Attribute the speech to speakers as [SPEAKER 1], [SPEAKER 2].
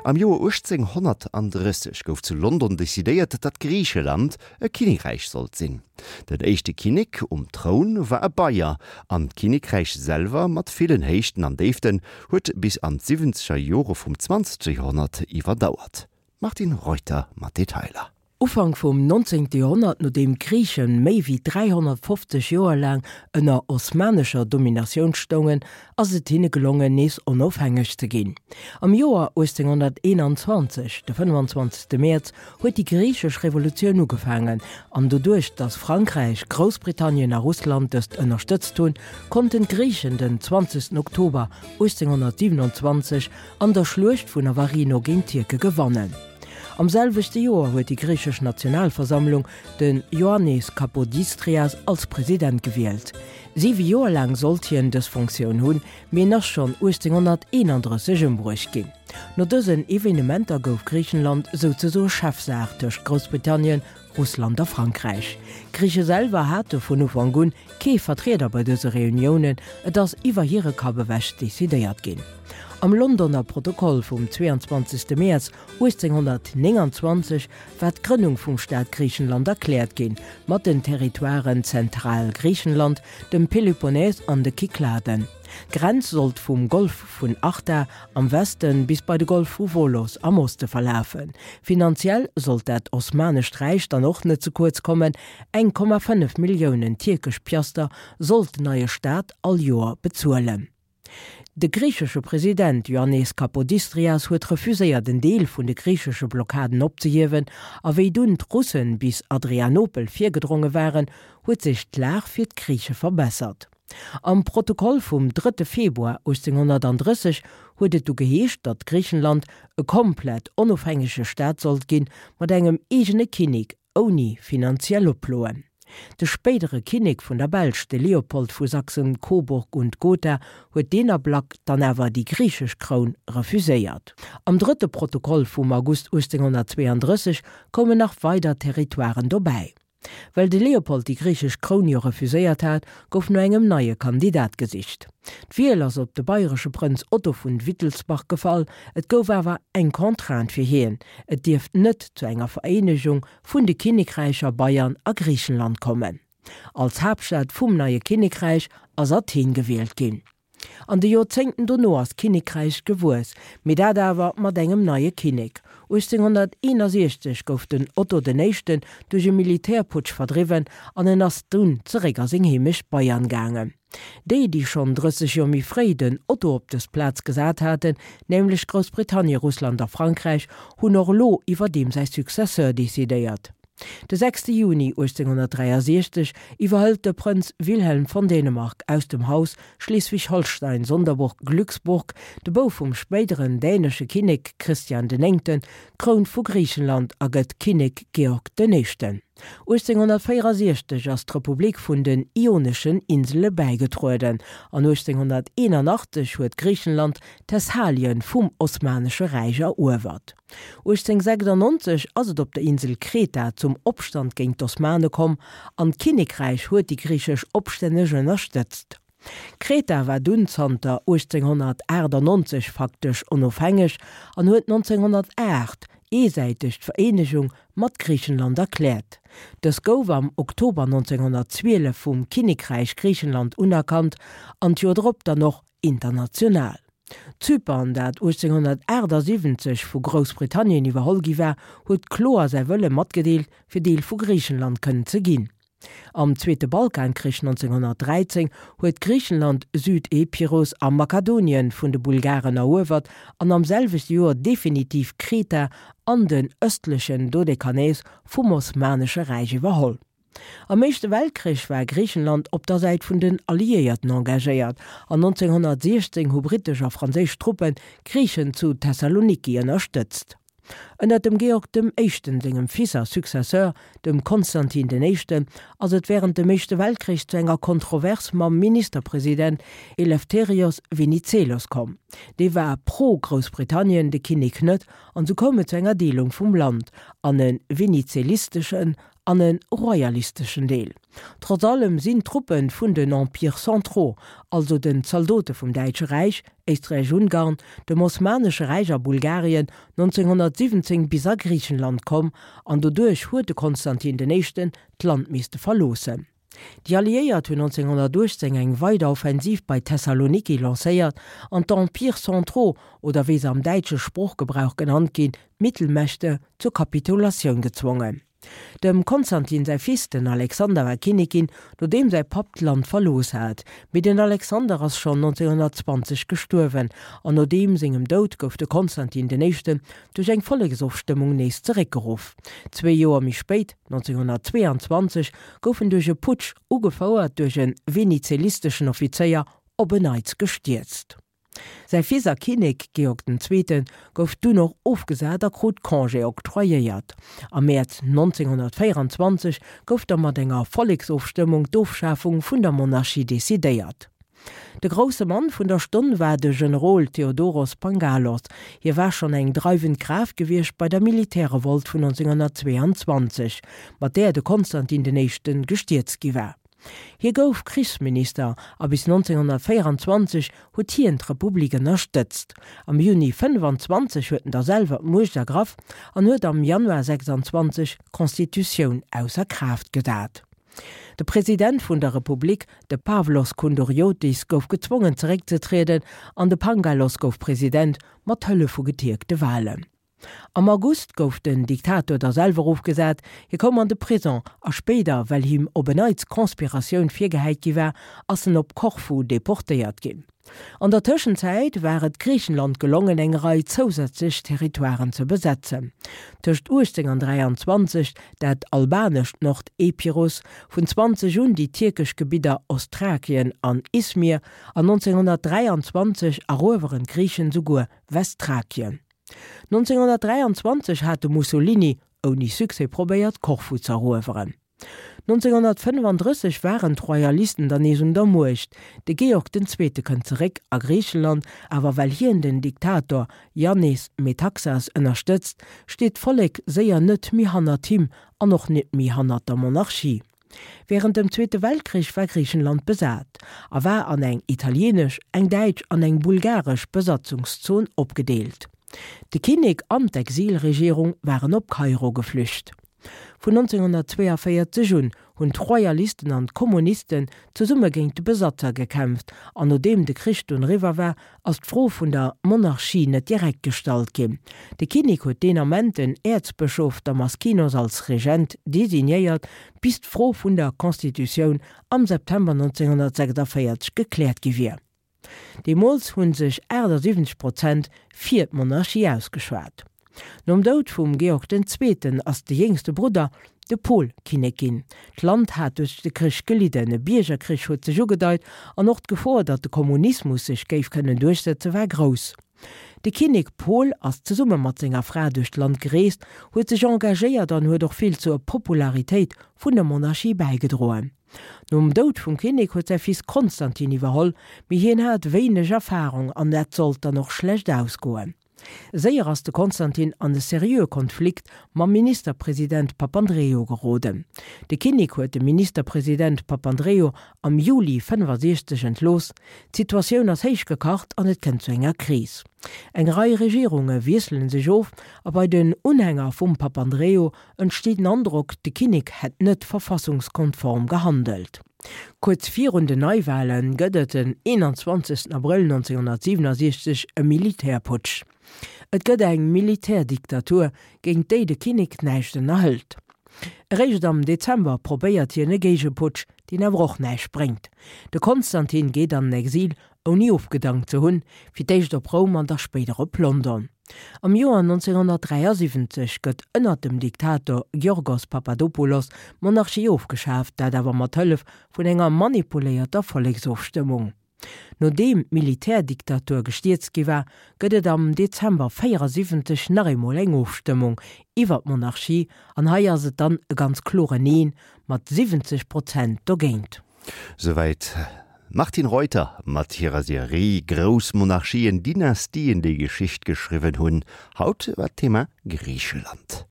[SPEAKER 1] Am Joer 1830 gouf zu London decidéiert, datt Griicheland e Kinnekräich sollt sinn. Den éischte Kinnek um Troun war e Bayer, an d'Kinnekräich selwer, mat villen Héichten an Déiften, huet bis an d'siwwenzeger Jore vum zwanzegste Joerhonnert iwwerdauert. D'Martine Reuter mat Detailer.
[SPEAKER 2] Ufank vum 19. Joerhonnert, nodeem d'Griichen méi wéi 350 Joer laang ënner osmanescher Dominatioun stoungen, ass et hinne gelongen, nees onofhängeg ze ginn. Am Joer 1821, de 25. Mäerz, huet déi griichesch Revolutioun ugefaangen, an doduerch datt Frankräich, Groussbritannien a Russland dëst ënnerstëtzt hunn, konnten d'Griichen den 20. Oktober 1827 an der Schluecht vun Navarino géint d'Tierke gewannen. Am selwechte Joer huet déi griichesch Nationalversammlung den Ioannis Kapodistrias als President gewielt. Siwe Joer laang sollt hien dës Fonctioun hunn, mee en ass schonn 1831 ëmbruecht ginn. No dësen Evenementer gouf Griichenland souzesoe Chefsaach tëscht Groussbritannien, Russland a Frankräich. D'Griiche selwer hate vun Ufank un kee Vertrieder bei dëse Reuniounen, et ass iwwer hire Kapp ewech decidéiert ginn. Am Londoner Protokoll vum 22. Mäerz 1829 war d'Grënnung vum Staat Griichenland erkläert ginn, mat den Territoiren Zentralgriichenland, dem Peloponnes an de Kykladen. D'Grenz sollt vum Golf vun Arta am Weste bis bei de Golf vu Volos am Oste verlafen. Finanziell sollt dat Osmanescht Räich dann och net ze kuerz kommen, 1,5 Milliounen tierkesch Piaster sollt den neie Staat all Joer bezuelen. De griichesche President Ioannis Kapodistrias huet refuséiert en Deel vun de griichesche Blockaden opzehiewen, a wéi dunn d'Russen bis Adrianopel virgedronge waren, huet sech d'Lag fir d'Griiche verbessert. Am Protokoll vum drëtte Februar 1830 huet et du geheescht, datt Griichenland e komplett onofhängege Staat sollt ginn, mat engem eegene Kinnek ouni finanziell Oploen. De spéidere Kinnek vun der Belsch, de Leopold vu Sachsen-Coburg und Gotha, huet deen Ablack dann awer déi griichesch Kroun refuséiert. Am drëtte Protokoll vum August 1832 koumen nach weider Territoiren dobäi. Well de Leopold déi griichesch Kroun jo refuséiert hat, gouf no engem neie Kandidat gesicht. D'Wiel ass op de bayresche Prënz Otto vun Wittelsbach gefall. Et gouf awer eng Contrainte fir hien, et dierft net zu enger Vereenegung vun de Kinnekräicher Bayern a Griichenland kommen. Als Haaptstad vum neie Kinnekräich ass Athen gewielt ginn. An de Joerzéngten dono ass d'Kinnekräich gewuess, mee dat awer mat engem neie Kinnek. 1861 gouf den Otto den Éischten duerch e Militärputsch verdriwwen an en ass dunn zeréck a seng Heemecht Bayern gaangen. Déi, déi schonn 30 Joer méi fréi den Otto op dës Plaz gesat haten, nämlech Groussbritannien, Russland a Frankräich, hunn och elo iwwer deem säi Successeur decidéiert. De 6 Juni 1863 iwwerhëlt de Prënz Wilhelm von Dänemark aus dem Haus Schleswig-Holstein-Sonderburg-Glücksburg, de Bouf vum spéideren dänesche Kinnek Christian den Néngten, d'Kroun vu Griichenland a gëtt Kinnek Georg den Éischten. 1864 ass d'Republik vun den Ioneschen Insele bäigetrueden an 1881 huet Griichenland Thessalien vum Osmanesche Räich eruewert. 1896 ass et op der Insel Kreta zum Opstand géint d'Osmane komm an d'Kinnekräich huet déi griichesch Opstänneg ënnerstëtzt. Kreta war dunn zanter 1898 faktesch onofhängeg an huet 1908 eesäiteg d'Vereenegung mat Griichenland erkläert. Dës gouf am Oktober 1912 vum Kinnekräich Griichenland unerkannt an d'Joer drop dann och international. Zypern, dat 1878 vu Groussbritannien iwwerholl gi war, huet kloer säi Wëlle matgedeelt, fir Deel vu Griichenland kënnen ze ginn. Am Zweete Balkankrich 1913 huet Griichenland Süd-Epirus a Makedonien vun de Bulgaren eruewert an am selwechte Joer definitiv Kreta an den ëstlechen Dodekanes vum Osmanesche Räich iwwerholl. Am Éischte Weltkrich war Griichenland op der Säit vun den Alliéierten engagéiert an 1916 hu brittesch a franséisch Truppen d'Griichen zu Thessaloniki ënnerstëtzt. Ënner dem Georg dem Éischten sengem Fils a Successeur, dem Konstantin den Éischten, ass et wärend dem Éischte Weltkrich zu enger Kontrovers mam Ministerpresident Eleftherios Venizelos komm. Dee war pro-Groussbritannien, de Kinnek net, an sou koum et zu enger Deelung vum Land an e venizelisteschen. an e royalisteschen Deel. Trotz allem sinn d'Truppe vun den Empires centraux, also den Zaldote vum Däitsche Räich, Éisträich-Ungarn, dem Osmanesche Räich a Bulgarien, 1917 bis a Griichenland komm an doduerch huet de Konstantin den Éischten d'Land misste verloossen. Déi Alliéiert hunn 1918 eng weider Offensiv bei Thessaloniki lancéiert an d'Empires centraux, oder wéi se am däitsche Sproochgebrauch genannt ginn, d'Mittelmächte, zur Kapitulatioun gezwongen. Dem Konstantin säi Fils, den Alexander, war Kinnek ginn, nodeem säi Papp d'Land verlooss hat. Mee den Alexander ass schonn 1920 gestuerwen an no deem sengem Doud gouf de Konstantin den Éischten duerch eng Volleksofstëmmung nees zeréckgeruff. Zwee Joer méi spéit, 1922, gouf en duerch e Putsch, ugefouert duerch e venizelisteschen Offizéier, op en Neits gestierzt. Säi Fils a Kinnek Georg den Zweete gouf dunn och ofgesat a krut Congé octroyéiert. Am Mäerz 1924 gouf da mat enger Volleksofstëmmung d'Ofschafung vun der Monarchie decidéiert. De grousse Mann vun der Stonn war de Generol Theodoros Pangalos. Hie war schonn eng dreiwend Kraaft gewiescht bei der Militärrevolt vun 1922, mat där de Konstantin den Éischte gestierzt gi war. Hie gouf Krichsminister a bis 1924 huet hien d'Republik ënnerstëtzt. Am Juni 25 huet en da selwer d'Muecht ergraff an huet am Januar 26 d'Constitutioun ausser Kraaft gesat. De President vun der Republik, de Pavlos Koundouriotis, gouf gezwongen zeréckzetrieden an de Pangalos gouf President, mat Hëllef vu getierkte Walen. Am August gouf den Diktator da selwer ofgesat, hie koum an de Prison a spéider, well him op en Neits Conspiratioun virgehäit gi war, ass en op Korfu deportéiert ginn. An der Tëschenzäit war et Griichenland gelongen, eng Rei zousätzlech Territoiren ze besetzen. Tëscht 18 an 23 dat albanescht Nord-Epirus, vun 20 un déi tierkesch Gebidder Ostthrakien an Izmir an 1923 erueweren d'Griichen souguer Westthrakien. 1923 hat de Mussolini, ouni Succès, probéiert Korfu z'erueweren. 1935 waren d'Royalisten dann nees un der Muecht. De Georg den Zweete kënnt zeréck a Griicheland, awer well hien den Diktator Jannis Metaxas ënnerstëtzt, steet d'Vollek séier net méi hannert him an och net méi hannert der Monarchie. Wärend dem Zweete Weltkrich war Griichenland besat a war an eng italieenesch, eng däitsch an eng bulgaresch Besatzungszon opgedeelt. De Kinnek an d'Exilregierung waren op Kairo geflücht. Vun 1942 un hunn d'Royalisten an d'Kommunisten zesumme géint de Besatzer gekämpft an nodeem de Krich dunn eriwwer war, ass d'Fro vun der Monarchie net direkt gestallt ginn. De Kinnek huet deen Ament den Äerzbëschof Damaskinos als Regent designéiert, bis d'Fro vun der Constitutioun am September 1946 gekläert gi wier. Deemools hu sech 78 Prozent fir d'Monarchie ausgeschwat. Nom Doud vum Georg den Zweeten ass de jéngste Brudder, de Paul, Kinnek ginn. D'Land hat duerch de Krich gelidden, e Biergerkrich huet sech ugedeit an och d'Gefor, datt de Kommunismus sech géif kënnen duerchsetze war grouss. De Kinnek Paul ass zesumme mat senger Fra duerch d'Land gereest, huet sech engagéiert an huet och vill zur Popularitéit vun der Monarchie bäigedroen. Nom Doud vum Kinnek huet säi Fils Konstantin iwwerholl, mee hien hat wéineg Erfarung an dat sollt dann och schlecht ausgoen. Séier ass de Konstantin an e seriöe Konflikt mam Ministerpresident Papandreou geroden. De Kinnek huet de Ministerpresident Papandreou am Juli 65 entlooss. D'Situatioun ass héich gekacht an et kënnt zu enger Kris. Eng Rei Regierunge wiessele sech of a bei den Unhänger vum Papandreou entsteet den Androck, de Kinnek hätt net verfassungskonform gehandelt. Kuerz virun den Neiwale gëtt et den 21 Abrëll 1967 e Militärputsch. Et gëtt eng Militärdiktatur, géint déi de Kinnek näischt ënnerhëlt. Eréischt am Dezember probéiert hien e Géigeputsch, deen awer och näischt bréngt. De Konstantin geet an den Exil ouni ofgedankt ze hunn, fir d'éischt op Roum an da spéider op London. Am Joer 1973 gëtt ënner dem Diktator Giorgos Papadopoulos d'Monarchie ofgeschaaft, dat awer mat Hëllef vun enger manipuléierter Volleksofstëmmung. Nodeem d'Militärdiktatur gestierzt gi war, gëtt et am Dezember 74 nach eemol eng Ofstëmmung iwwer d'Monarchie an hei ass et dann e ganz kloren Neen mat 70 Prozent dogéint.
[SPEAKER 1] Souwäit d'Martine Reuter mat hirer Serie Grouss Monarchien, Dynastien, déi Geschicht geschriwwen hunn. Haut war d'Thema Griicheland.